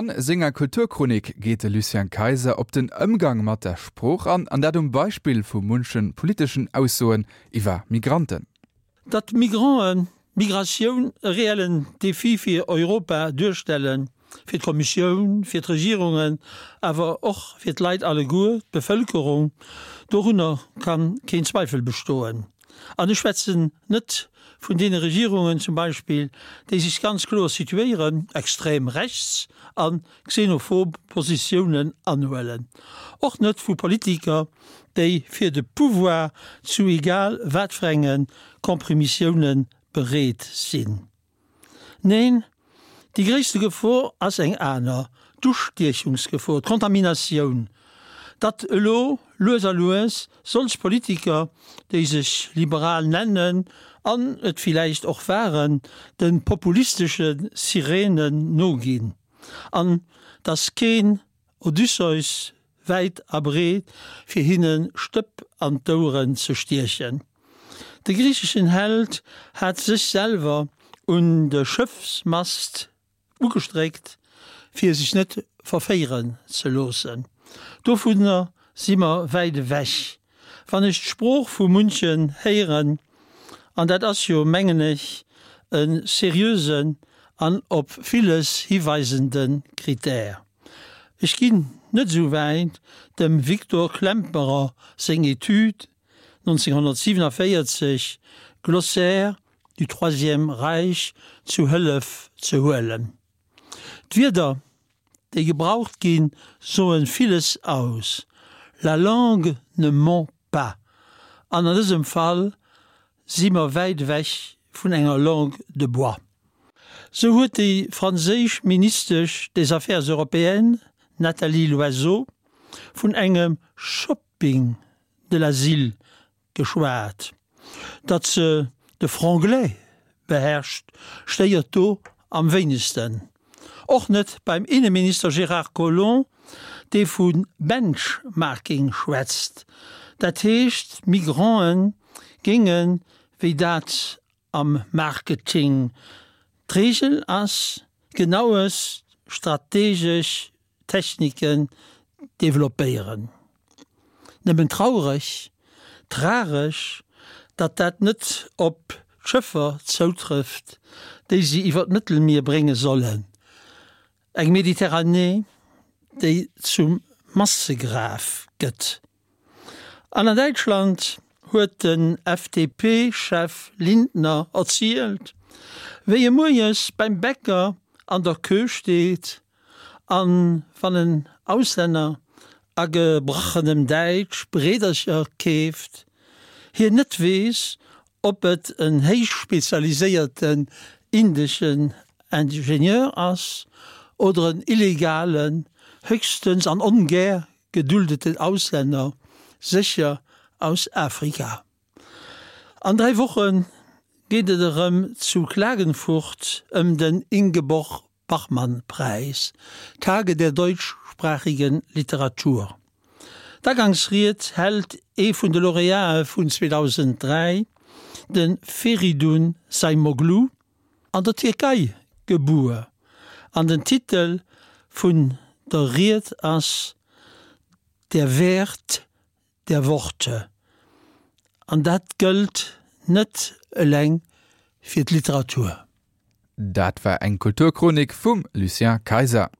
An senger Kulturchronik geet de Lucien Kayser op den Ëmgang mat der Sprooch an, an dat um Beispill vu munche politeschen Aussoen iwwer Migranten. Datt Migranten, Migratioun e reellen Defi fir Europa duerstellen, fir d'Kommissioun, fir d'Regierungen, awer och fir d'Leit alleguer, d'Bevëlkerung, dorunner ka keen Zweifel bestoen. An ech schwätzen net vun deene Regierungen zum Beispill, déi sech ganz kloer situéieren, extrem rechts a xenophob Positiounen anhuelen, och net vu Politiker, déi fir de Pouvoir zu egal wat fir enge Kompromissioune bereet sinn. Neen, déi gréisste Gefor ass eng aner, d'Ustiechungsgefor, d'Kontaminatioun, datt elo lues a lues solch Politiker, déi sech liberal nennen an et villäicht och waren, de populistesche Sirenen noginn an datt keen Odysseus wäit a breet, fir hinne Stëpp an d'Oueren ze stiechen. De griicheschen Held hat sech selwer un de Schëffsmast ugestréckt, fir sech net verféieren ze loossen. Dovunner si mer wäit ewech, wann ech d'Sprooch vu munchen héieren, an dat ass jo, mengen ech, e seriösen an op villes hiweisende Kritär. Ech ginn net esou wäit, dem Victor Klemperer seng Etüd 1947, Glossaire du Troisième Reich zu Hëllef ze huelen. D'Wierder, déi gebraucht ginn, soen villes aus, La langue ne ment pas, an an dësem Fall si mer wäit ewech vun enger Langue de bois. Sou huet déi franséisch Ministesch des Affaires européennes, Nathalie Loiseau, vun engem Shopping de l'asile geschwat. Datt se de Franglais beherrscht, stéiert do am wéinegsten. Och net beim Inneminister Gérard Collomb, dee vu Benchmarking schwätzt. Dat heescht, d'Migranten géingen, wéi dat am Marketing d'Reegel ass, genaues strategesch Techniken developpéieren. Nëmmen traureg, tragesch, datt dat net op d'Schëffer zoutrëfft, déi si iwwer d'Mëttelmier brénge sollen. Eng Mediterranee, déi zum Massegraf gëtt. An an Däitschland huet den FDP-Chef Lindner erzielt, wéi e moies beim Bäcker an der Queue steet an wann en Auslänner a gebrachenem Däitsch Breedercher keeft, hien net weess, ob et en héichspezialiséierten indeschen Ingenieur ass oder en illegalen, höchstens an ongär geduldeten Auslänner, sécher aus Afrika. An 3 Woche geet et erëm zu Klagenfurt ëm den Ingeborg Bachmann-Preis, Tage der deutschsprachigen Literatur. D'Agangsried hält ee vun de Laureatë vun 2003, de Feridun Zaimoglu, an der Tierkei gebuer, an den Titel vun der Ried ass Der Wert der Worte. An dat gëllt net eleng fir d'Literatur. Dat war eng Kulturchronik vum Lucien Kayser.